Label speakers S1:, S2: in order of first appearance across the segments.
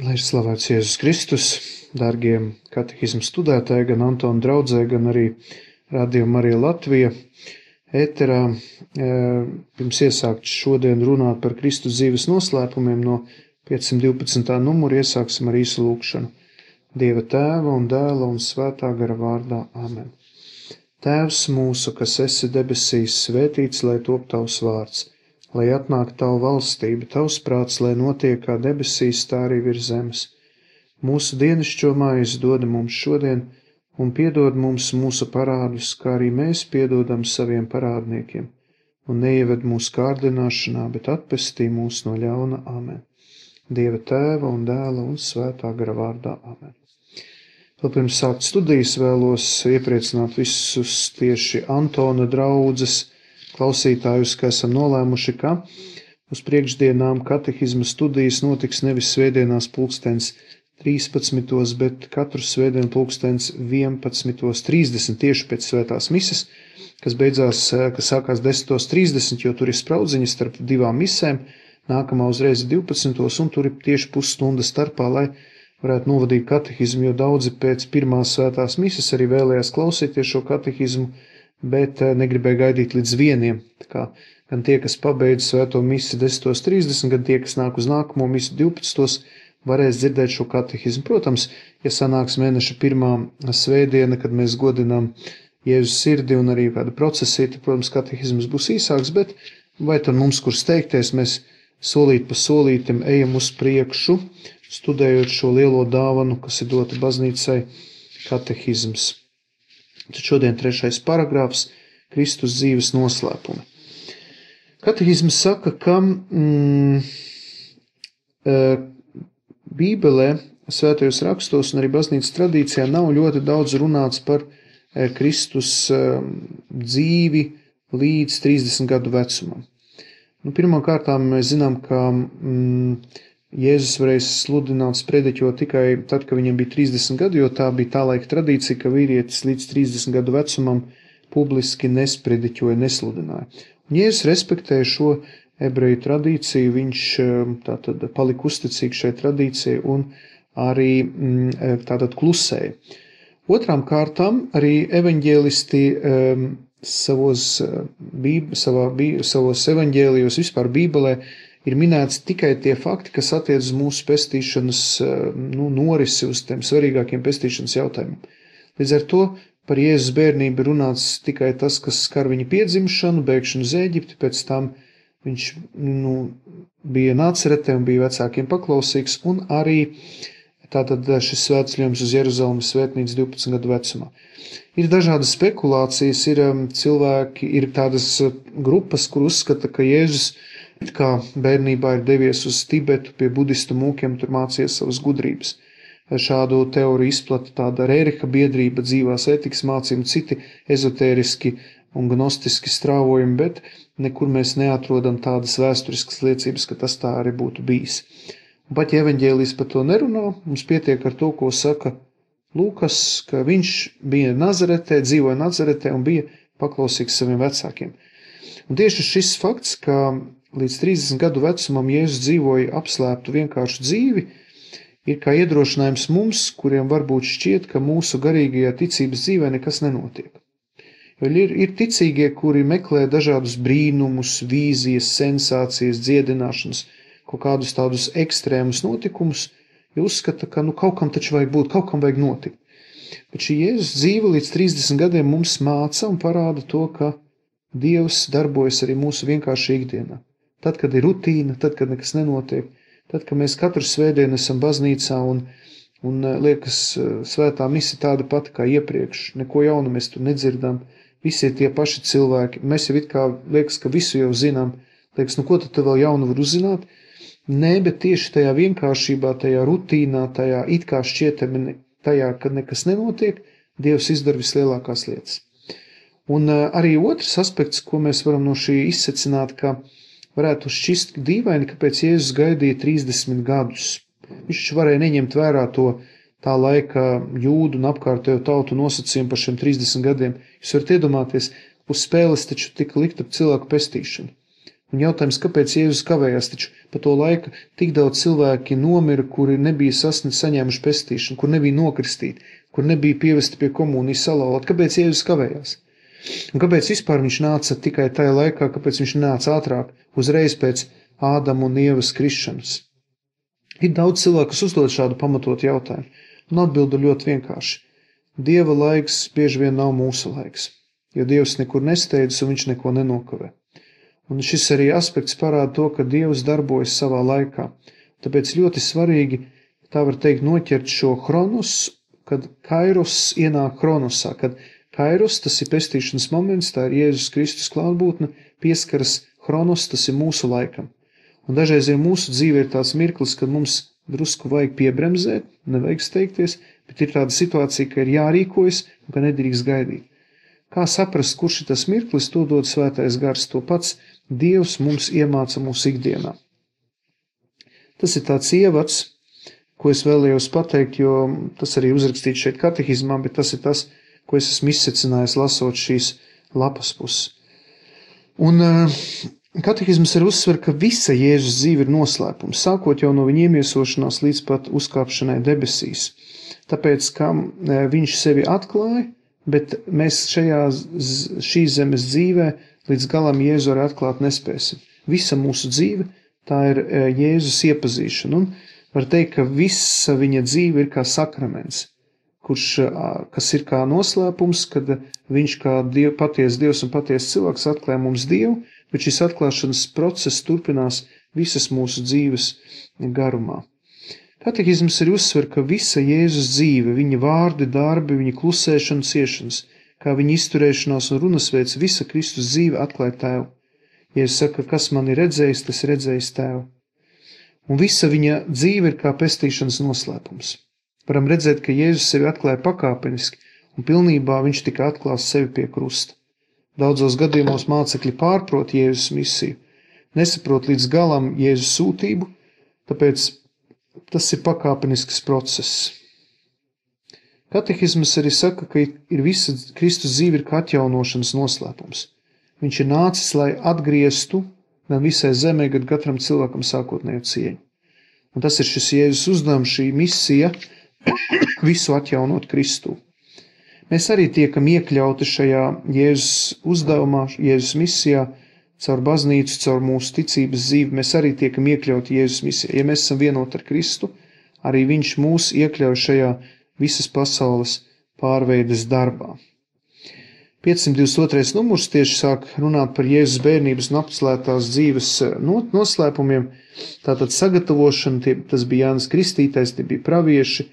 S1: Lai ir slavēts Jēzus Kristus, dārgie katehismu studētāji, gan Antona draudzē, gan arī Radio Marija Latvija ēterā. Pirms iesākt šodien runāt par Kristus dzīves noslēpumiem no 512. numura iesāksim ar īsu lūkšanu. Dieva Tēva un Dēla un Svētā gara vārdā. Āmen. Tēvs mūsu, kas esi debesīs, svētīts, lai top tavs vārds, lai atnāk tavu valstība, tavs prāts, lai notiek kā debesīs, tā arī virs zemes. Mūsu dienascho maizi dod mums šodien, un piedod mums mūsu parādus, kā arī mēs piedodam saviem parādniekiem. Un neieved mūsu kārdināšanā, bet atpestī mūs no ļauna. Āmen. Dieva Tēva un Dēla un Svētā gara vārdā. Āmen. Vēl pirms sākt studijas vēlos iepriecināt visus tieši Antona draudzes klausītājus, ka esam nolēmuši, ka uz priekšdienām katehisma studijas notiks nevis svētdienās 13:13, bet katru svētdienu 11:30 tieši pēc svētās mises, kas sākās 10:30, jo tur ir spraudziņa starp divām misēm, nākamā uzreiz 12, un tur ir tieši pusstunda starpā, lai varētu novadīt katehismu, jo daudzi pēc pirmās svētās mises arī vēlējās klausīties šo katehismu, bet negribēja gaidīt līdz 1. Tā kā gan tie, kas pabeidz svēto misi 10:30, gan tie, kas nāk uz nākamo misi 12, varēs dzirdēt šo katehismu. Protams, ja sanāks mēneša pirmā svētdiena, kad mēs godinām Jēzus sirdi un arī kāda procesija, tad, protams, katehisms būs īsāks, bet vai tad mums, kur steigties, mēs solīt pa solītim ejam uz priekšu, studējot šo lielo dāvanu, kas ir dota baznīcai, katehisms. Tad šodien 3. paragrāfs – Kristus dzīves noslēpumi. Katehisms saka, ka Bībelē, svētajos rakstos un arī baznīcas tradīcijā nav ļoti daudz runāts par Kristus dzīvi līdz 30 gadu vecumam. Pirmkārtām mēs zinām, ka Jēzus varēja sludināt, sprediķot tikai tad, kad viņam bija 30 gadi, jo tā bija tā laika tradīcija, ka vīrietis līdz 30 gadu vecumam publiski nesprediķoja, nesludināja. Un Jēzus respektēja šo ebreju tradīciju, viņš tātad palika uzticīgs šai tradīcijai un arī tātad klusēja. Otrām kārtām arī evaņģēlisti savos evaņģēlijos vispār Bībelē ir minēts tikai tie fakti, kas attiec uz mūsu pestīšanas norisi, uz tiem svarīgākiem pestīšanas jautājumiem. Līdz ar to par Jēzus bērnību runāts tikai tas, kas skar viņa piedzimšanu, bēgšanu uz Ēģipti, pēc tam viņš bija Nāceretē un bija vecākiem paklausīgs, un arī tātad šis svētceļojums uz Jeruzalemes svētnīcu 12 gadu vecumā. Ir dažādas spekulācijas, ir tādas grupas, kur uzskata, ka Jēzus kā bērnībā ir devies uz Tibetu pie budistu mūkiem, tur mācījies savas gudrības. Šādu teoriju izplata tāda Rēriha biedrība, dzīvās ētikas mācījumi, citi ezotēriski un gnostiski strāvojumi, bet nekur mēs neatrodam tādas vēsturiskas liecības, ka tas tā arī būtu bijis. Un pat ja evaņģēlijs par to nerunā, mums pietiek ar to, ko saka Lūkas, ka viņš bija Nazaretē, dzīvoja Nazaretē un bija paklausīgs saviem vecākiem. Un tieši šis fakts, ka līdz 30 gadu vecumam Jēzus dzīvoja apslēptu vienkāršu dzīvi, ir kā iedrošinājums mums, kuriem varbūt šķiet, ka mūsu garīgajā ticības dzīvē nekas nenotiek. Jo ir ticīgie, kuri meklē dažādus brīnumus, vīzijas, sensācijas, dziedināšanas, kaut kādus tādus ekstrēmus notikumus, jo uzskata, ka kaut kam taču vajag būt, kaut kam vajag notikt. Bet šī Jēzus dzīve līdz 30 gadiem mums māca un parāda to, ka Dievs darbojas arī mūsu vienkārši ikdienā. Tad, kad ir rutīna, tad, kad nekas nenotiek, tad, kad mēs katru svētdienu esam baznīcā un liekas svētā mise tāda pati kā iepriekš, neko jaunu mēs tur nedzirdam, visi ir tie paši cilvēki, mēs jau it kā liekas, ka visu jau zinām, liekas, ko tad vēl jaunu var uzzināt? Nē, bet tieši tajā vienkāršībā, tajā rutīnā, tajā it kā šķietami, tajā, kad nekas nenotiek, Dievs izdara vislielākās lietas. Un arī otrs aspekts, ko mēs varam no šī izsecināt, ka varētu šķist dīvaini, kāpēc Jēzus gaidīja 30 gadus. Viņš varēja neņemt vērā tā laika jūdu un apkārtējo tautu nosacījumu par šiem 30 gadiem. Jūs varat iedomāties, uz spēles taču tika likt ap cilvēku pestīšanu. Un jautājums, kāpēc Jēzus kavējās, taču pa to laiku tik daudz cilvēki nomira, kuri nebija saņēmuši pestīšanu, kur nebija nokristīti, kur nebija pievesti pie komunijas salauzti. Kāpēc Jēzus kavējās? Un kāpēc vispār viņš nāca tikai tajā laikā, kāpēc viņš nāca ātrāk, uzreiz pēc Ādama un Ievas krišanas? Ir daudz cilvēku, kas uzdod šādu pamatotu jautājumu, un atbildu ļoti vienkārši. Dieva laiks bieži vien nav mūsu laiks, jo Dievs nekur nesteidzas un viņš neko nenokavē. Un šis arī aspekts parāda to, ka Dievs darbojas savā laikā. Tāpēc ļoti svarīgi, tā var teikt, noķert šo chronos, kad kairos ienāk chronosā, kad kairos, tas ir pestīšanas moments, tā ir Jēzus Kristus klātbūtne, pieskaras chronos, tas ir mūsu laikam. Un dažreiz ir mūsu dzīve ir tāds mirklis, kad mums drusku vajag piebremzēt, nevajag steigties, bet ir tāda situācija, ka ir jārīkojas un ka nedrīkst gaidīt. Kā saprast, kurš ir tas mirklis, to dod Svētais Gars, to pats Dievs mums iemāca mūsu ikdienā. Tas ir tāds ievads, ko es vēlējos pateikt, jo tas arī uzrakstīts šeit katehizmā, bet tas ir tas, ko es esmu izsecinājis lasot šīs lapas puses. Un katehizms ir uzsver, ka visa Jēzus dzīve ir noslēpums, sākot jau no viņa iemiesošanās līdz pat uzkāpšanai debesīs. Tāpēc, ka viņš sevi atklāja, bet mēs šīs zemes dzīvē līdz galam Jēzu arī atklāt nespēsim. Visa mūsu dzīve, tā ir Jēzus iepazīšana, un var teikt, ka visa viņa dzīve ir kā sakraments, kas ir kā noslēpums, kad viņš kā paties Dievs un paties cilvēks atklāja mums Dievu, bet šis atklāšanas process turpinās visas mūsu dzīves garumā. Katehizms ir uzsver, ka visa Jēzus dzīve, viņa vārdi, darbi, viņa klusēšana, ciešanas, kā viņa izturēšanās un runasveids, visa Kristus dzīve atklāja Tēvu. Jēzus saka, kas man ir redzējis, tas redzējis Tēvu. Un visa viņa dzīve ir kā pestīšanas noslēpums. Varam redzēt, ka Jēzus sevi atklāja pakāpeniski, un pilnībā viņš tika atklās sevi pie krusta. Daudzos gadījumos mācekļi pārprot Jēzus misiju, nesaprot līdz galam Jēzus sūtību, tāpēc tas ir pakāpenisks process. Katehizms arī saka, ka ir visa Kristus dzīve ir kā atjaunošanas noslēpums. Viņš ir nācis, lai atgrieztu gan visai zemē, gan katram cilvēkam sākotnējo cieņu. Un tas ir šis Jēzus uzdevums, šī misija visu atjaunot Kristū. Mēs arī tiekam iekļauti šajā Jēzus uzdevumā, Jēzus misijā, caur baznīcu, caur mūsu ticības dzīvi, mēs arī tiekam iekļauti Jēzus misijā. Ja mēs esam vienoti ar Kristu, arī viņš mūs iekļauj šajā visas pasaules pārveides darbā. 522. numurs tieši sāk runāt par Jēzus bērnības un apcelētās dzīves noslēpumiem. Tātad sagatavošana, tas bija Jānis Kristītais, tie bija pravieši,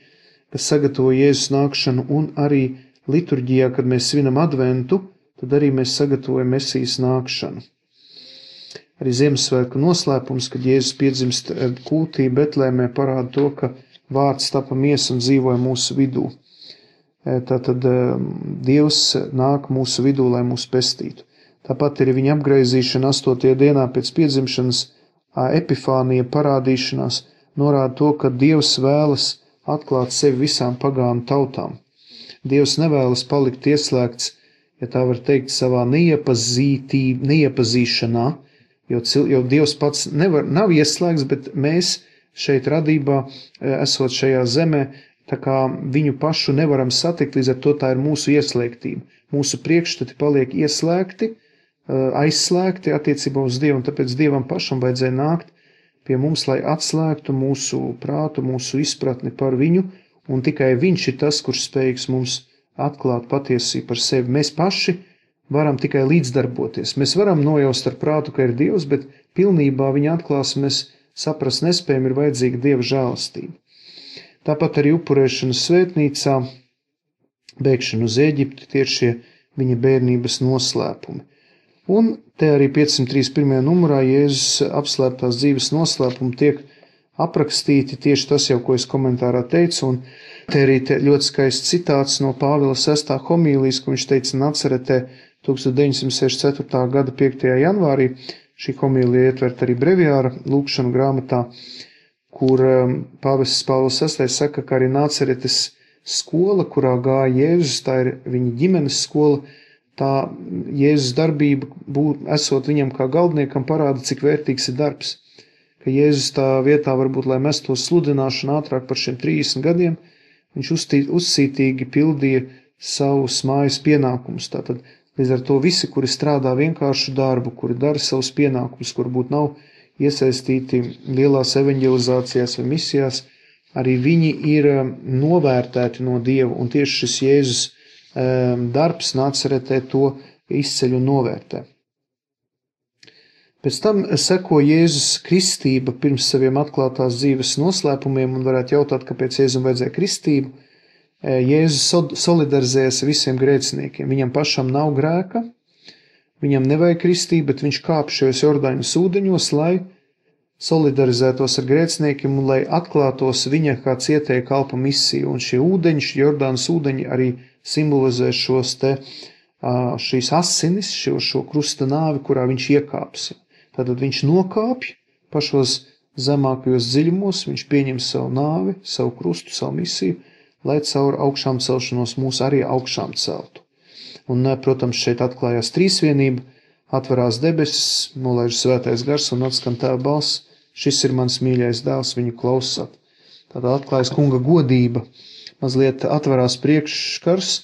S1: kas sagatavo Jēzus nākšanu, un arī liturģijā, kad mēs svinam adventu, tad arī mēs sagatavojam Mesijas nākšanu. Arī Ziemassvētku noslēpums, kad Jēzus piedzimst kūtī Betlēmē, parāda to, ka vārds tapa miesa un dzīvoja mūsu vidū. Tātad Dievs nāk mūsu vidū, lai mūs pestītu. Tāpat ir viņa apgraizīšana 8. dienā pēc piedzimšanas, epifānija parādīšanās, norāda to, ka Dievs vēlas atklāt sevi visām pagānu tautām. Dievs nevēlas palikt ieslēgts, ja tā var teikt, savā neiepazīšanā, jo Dievs pats nav ieslēgts, bet mēs šeit radībā, esot šajā zemē, tā kā viņu pašu nevaram satikt, līdz ar to tā ir mūsu ieslēgtība. Mūsu priekšstati paliek ieslēgti, aizslēgti attiecībā uz Dievu, un tāpēc Dievam pašam vajadzēja nākt pie mums, lai atslēgtu mūsu prātu, mūsu izpratni par viņu, un tikai viņš ir tas, kurš spējīgs mums atklāt patiesību par sevi. Mēs paši varam tikai līdzdarboties. Mēs varam nojaust ar prātu, ka ir Dievs, bet pilnībā viņa atklāsmi mēs saprast nespējam, ir vajadzīga Dieva žēlastība. Tāpat arī upurēšanas svētnīcā, bēgšana uz Ēģipti, tie ir šie viņa bērnības noslēpumi. Un te arī 531. numurā Jēzus apslēptās dzīves noslēpumi tiek aprakstīti, tieši tas jau, ko es komentārā teicu, un te arī ļoti skaists citāts no Pāvila 6. homīlijas, ko viņš teica Nacaretē 1964. gada 5. janvārī. Šī homīlija ietvert arī breviāra lūkšanu grāmatā, kur pāvests Pāvils VI saka, ka arī Nacaretes skola, kurā gāja Jēzus, tā ir viņa ģimenes skola, tā Jēzus darbība, esot viņam kā galdniekam, parāda, cik vērtīgs ir darbs. Ka Jēzus tā vietā varbūt, lai mestos sludināšanu ātrāk par šiem 30 gadiem, viņš uzcītīgi pildīja savus mājas pienākumus. Tātad līdz ar to visi, kuri strādā vienkāršu darbu, kuri dara savus pienākumus, kur būt nav iesaistīti lielās evanģelizācijās vai misijās, arī viņi ir novērtēti no Dieva, un tieši šis Jēzus darbs Nacaretē to izceļ un novērtē. Pēc tam seko Jēzus kristība pirms saviem atklātās dzīves noslēpumiem, un varētu jautāt, kāpēc Jēzum vajadzēja kristību. Jēzus solidarizējas ar visiem grēciniekiem. Viņam pašam nav grēka, viņam nevajag kristību, bet viņš kāp šajos Jordāņas ūdeņos, lai solidarizētos ar grēciniekiem un lai atklātos viņa kā cietēja kalpa misiju. Un šie ūdeņi, šie Jordānas ūdeņi arī simbolizē šīs asinis, šo krusta nāvi, kurā viņš iekāps. Tātad viņš nokāpj pašos zemākajos dziļumos, viņš pieņem savu nāvi, savu krustu, savu misiju, lai caur augšām celšanos mūs arī augšām celtu. Un, protams, šeit atklājās trīsvienība, atverās debesis, nolaiž svētais gars un atskan Tēva balss, šis ir mans mīļais dēls, viņu klausāt. Tātad atklājas kunga godība, mazliet atverās priekšskars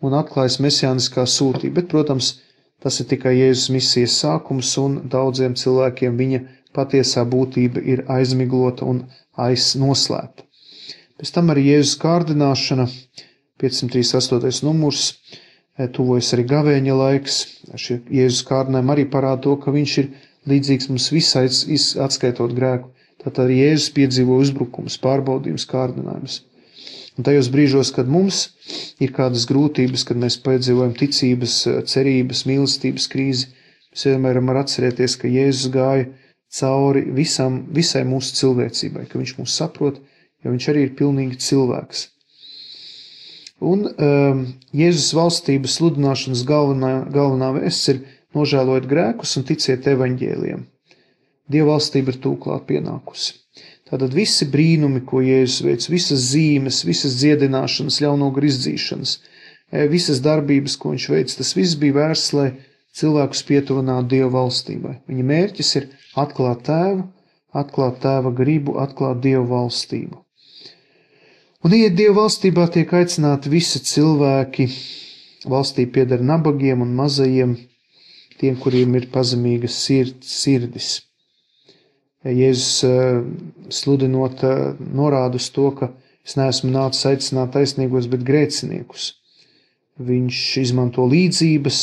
S1: un atklājas mesijāniskā sūtība, bet, protams, tas ir tikai Jēzus misijas sākums un daudziem cilvēkiem viņa patiesā būtība ir aizmiglota un noslēpta. Pēc tam arī Jēzus kārdināšana, 538. numurs, tuvojas arī gavēņa laiks. Šie Jēzus kārdinājumi arī parāda to, ka viņš ir līdzīgs mums visai atskaitot grēku. Tātad arī Jēzus piedzīvo uzbrukums, pārbaudījums, kārdinājumus. Un tajos brīžos, kad mums ir kādas grūtības, kad mēs piedzīvojam ticības, cerības, mīlestības krīzi, mēs vienmēr varam atcerēties, ka Jēzus gāja cauri visai mūsu cilvēcībai, ka viņš mūs saprot, jo viņš arī ir pilnīgi cilvēks. Un Jēzus valstības sludināšanas galvenā vēsts ir nožēlojot grēkus un ticiet evaņģēlijam. Dieva valstība ir tūklāt pienākusi. Tātad visi brīnumi, ko Jēzus veic, visas zīmes, visas dziedināšanas, ļaunogaru izdzīšanas, visas darbības, ko viņš veic, tas viss bija vērsts, lai cilvēkus pietuvinātu Dieva valstībai. Viņa mērķis ir atklāt Tēvu, atklāt Tēva gribu, atklāt Dieva valstību. Un iet Dieva valstībā tiek aicināti visi cilvēki. Valstī pieder nabagiem un mazajiem, tiem, kuriem ir pazemīgas sirdis. Jēzus sludinot norāda uz to, ka es neesmu nācis aicināt taisnīgos, bet grēciniekus. Viņš izmanto līdzības,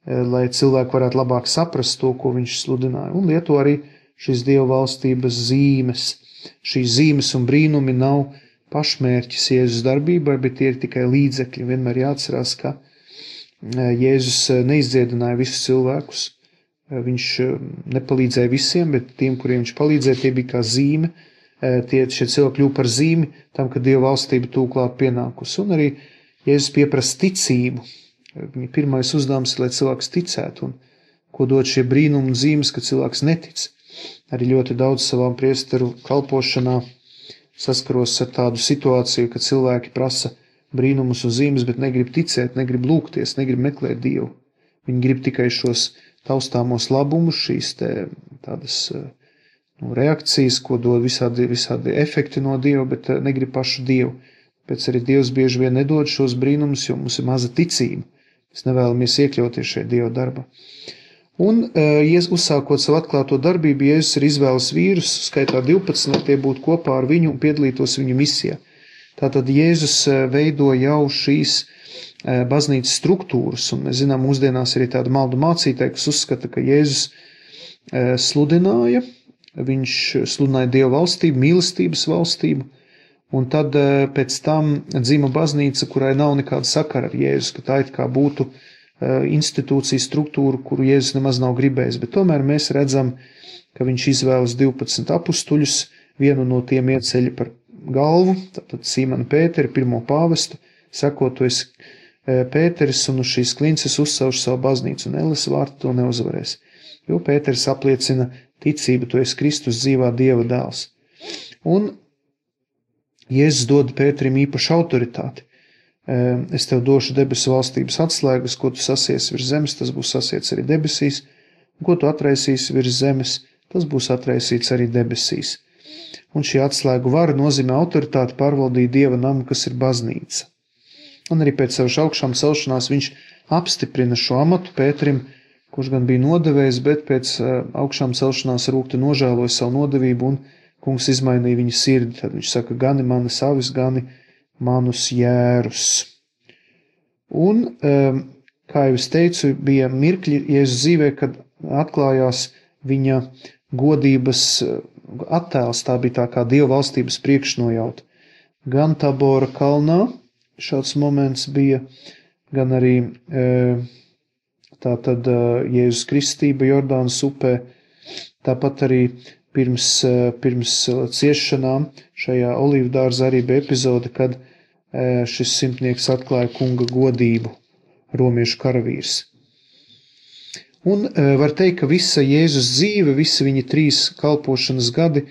S1: lai cilvēki varētu labāk saprast to, ko viņš sludināja, un lieto arī šīs Dieva valstības zīmes. Šīs zīmes un brīnumi nav pašmērķis Jēzus darbībai, bet tie ir tikai līdzekļi. Vienmēr jāatcerās, ka Jēzus neizdziedināja visus cilvēkus. Viņš nepalīdzēja visiem, bet tiem, kuriem viņš palīdzēja, tie bija kā zīme. Šie cilvēki kļuva par zīmi tam, ka Dieva valstība tūklāt pienākusi. Un arī Jēzus pieprasa ticību. Viņa pirmais uzdevums ir, lai cilvēks ticētu, un ko dod šie brīnumi un zīmes, ka cilvēks netic. Arī ļoti daudz savām priesteru kalpošanā saskaros ar tādu situāciju, ka cilvēki prasa brīnumus un zīmes, bet negrib ticēt, negrib lūgties, negrib meklēt Dievu. Viņi grib tikai šos taustāmos labumus, šīs tādas reakcijas, ko dod visādi efekti no Dieva, bet negrib pašu Dievu. Pēc arī Dievs bieži vien nedod šos brīnumus, jo mums ir maza ticība. Mēs nevēlamies iekļauties šajā Dieva darbā. Un, uzsākot savu atklāto darbību, Jēzus ir izvēles vīrus, skaitā 12, lai tie būtu kopā ar viņu un piedalītos viņu misijā. Tātad Jēzus veido jau šīs baznīcas struktūras, un mēs zinām, mūsdienās arī tāda maldu mācītāja, kas uzskata, ka Jēzus sludināja, viņš sludināja Dieva valstību, mīlestības valstību, un tad pēc tam dzima baznīca, kurai nav nekāda sakara ar Jēzus, ka tā it kā būtu institūciju struktūru, kuru Jēzus nemaz nav gribējis, bet tomēr mēs redzam, ka viņš izvēlas 12 apustuļus, vienu no tiem ieceļ par galvu, tātad Sīmanu Pēteri, pirmo pāvestu, sakot, tu esi Pēteris un uz šīs klinces uzsauž savu baznīcu, un elles vārtu to neuzvarēs, jo Pēteris apliecina ticību, tu esi Kristus dzīvā Dieva dēls. Un Jēzus dod Pēterim īpašu autoritāti. es tev došu debesu valstības atslēgas, ko tu sasiesi virs zemes, tas būs sasiets arī debesīs, un ko tu atraisīsi virs zemes, tas būs atraisīts arī debesīs. Un šī atslēgu vara nozīmē autoritāti pārvaldīt Dieva namu, kas ir baznīca. Un arī pēc savas augšām celšanās viņš apstiprina šo amatu Pēterim, kurš gan bija nodevējis, bet pēc augšām celšanās rūkti nožēloja savu nodevību un kungs izmainīja viņa sirdi. Tad viņš saka, gani manas avis, gani manus jērus. Un, kā jau es teicu, bija mirkļi Jēzus dzīvē, kad atklājās viņa godības attēls, tā bija tā kā Dieva valstības priekšnojauta. Gan Tabora kalnā šāds moments bija, gan arī tātad Jēzus kristība Jordānas upē, tāpat arī pirms ciešanām šajā olīvdārza arī bija epizode, kad šis simtnieks atklāja kunga godību, romiešu karavīrs. Un var teikt, ka visa Jēzus dzīve, visi viņa 3 kalpošanas gadi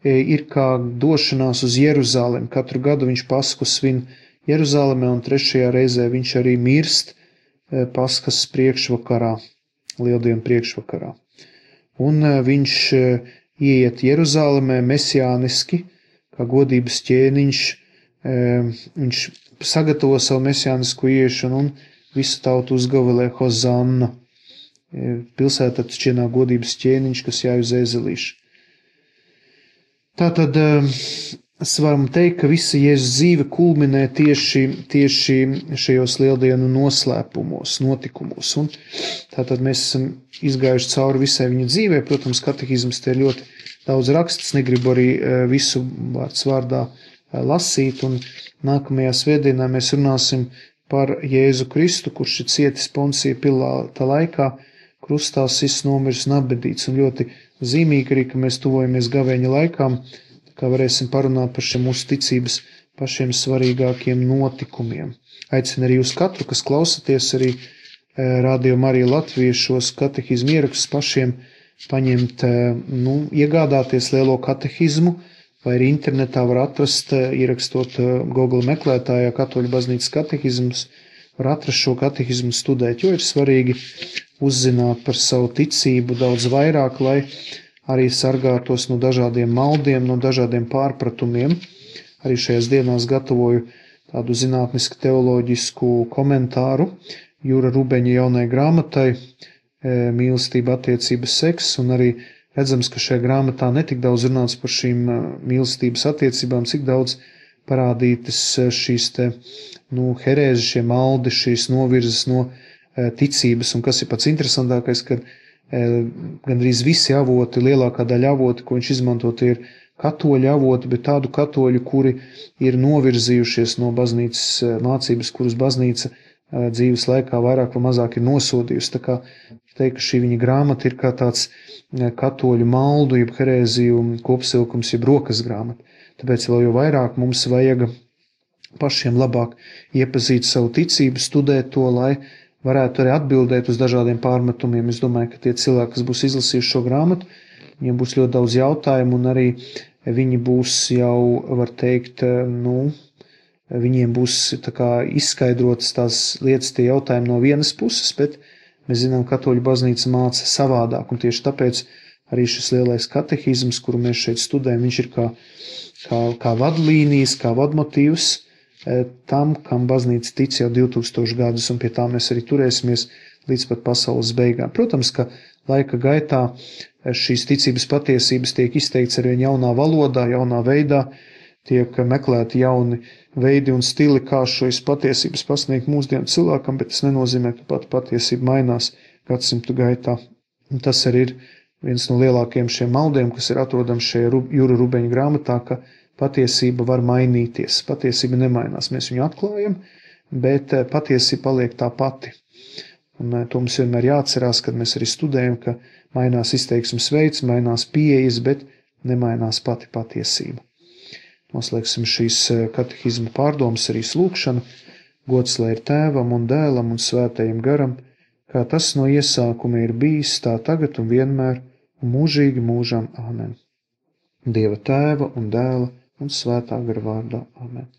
S1: ir kā došanās uz Jeruzalemi. Katru gadu viņš Pasku svin Jeruzalemē un 3. reizē viņš arī mirst Paskas priekšvakarā, Lieldienu priekšvakarā. Un viņš ieiet Jeruzalemē mesijāniski, kā godības ķēniņš, viņš sagatavo savu mesijānisku ieiešanu un visu tautu uzgavilē Hozanna. Pilsētā šķienā godības ķēniņš, kas jāj uz ēzelīšu. Tātad es varam teikt, ka visa Jēzus dzīve kulminē tieši šajos lieldienu noslēpumos, notikumos. Un tātad mēs esam izgājuši cauri visai viņa dzīvē. Protams, katehisms te ir ļoti daudz rakstis, negribu arī visu vārds vārdā lasīt. Un nākamajā svētdienā mēs runāsim par Jēzu Kristu, kurš ir cietis Poncija Pilāta laikā, krustā sists, nomiris un apbedīts. Un ļoti zīmīgi arī, ka mēs tuvojamies gavēņa laikām, kā varēsim parunāt par šiem mūsu ticības pašiem svarīgākiem notikumiem. Aicinu arī uz katru, kas klausaties arī Radio Marija Latvija šos katehizmu ierakstus pašiem paņemt, iegādāties lielo katehizmu, vai arī internetā var atrast, ierakstot Google meklētājā Katoļu baznīcas katehizmus, var atrast šo katehizmu studēt, jo ir svarīgi uzzināt par savu ticību daudz vairāk, lai arī sargātos no dažādiem maldiem, no dažādiem pārpratumiem. Arī šajās dienās gatavoju tādu zinātnisku teoloģisku komentāru Jura Rubeņa jaunai grāmatai Mīlestība, attiecības, seks, un arī redzams, ka šajā grāmatā netik daudz runāts par šīm mīlestības attiecībām, cik daudz parādītas šīs herēzes, šie maldi, šīs novirzes no ticības, un kas ir pats interesantākais, kad gandrīz visi avoti, lielākā daļa avoti, ko viņš izmantot, ir katoļu avoti, bet tādu katoļu, kuri ir novirzījušies no baznīcas mācības, kuras baznīca dzīves laikā vairāk vai mazāk ir nosodījusi. Tā kā teikt, ka šī viņa grāmata ir kā tāds katoļu maldu, jeb herēziju kopsilkums, jeb rokas grāmata. Tāpēc vēl jau vairāk mums vajag pašiem labāk iepazīt savu ticību, studēt to, lai varētu arī atbildēt uz dažādiem pārmetumiem. Es domāju, ka tie cilvēki, kas būs izlasījuši šo grāmatu, viņiem būs ļoti daudz jautājumu, un arī viņi būs jau, var teikt, viņiem būs tā kā izskaidrotas tās lietas, tie jautājumi no vienas puses, bet mēs zinām, katoļu baznīca māca savādāk, un tieši tāpēc arī šis lielais katehizms, kuru mēs šeit studējam, viņš ir kā vadlīnijas, kā vadmotīvs tam, kam baznīca tic jau 2000 gadus, un pie tā mēs arī turēsimies līdz pat pasaules beigām. Protams, ka laika gaitā šīs ticības patiesības tiek izteikts arvien jaunā valodā, jaunā veidā, tiek meklēti jauni veidi un stili, kā šīs patiesības pasniegt mūsdienu cilvēkam, bet tas nenozīmē, ka pat patiesība mainās gadsimtu gaitā. Un tas arī ir viens no lielākajiem šiem maldiem, kas ir atrodams šajā Jura Rubeņa grāmatā, ka patiesība var mainīties. Patiesība nemainās. Mēs viņu atklājam, bet patiesība paliek tā pati. Un to mums vienmēr jāatcerās, kad mēs arī studējam, ka mainās izteiksmes veids, mainās pieejas, bet nemainās pati patiesība. Noslēgsim šīs katehizma pārdomas arī lūgšanu. Gods lai ir Tēvam un Dēlam un Svētajam garam, kā tas no iesākuma ir bijis, tā tagad un vienmēr, un mūžīgi mūžam. Āmen. Dieva Tēva un Dēla un Svētā gara vārdā. Āmen.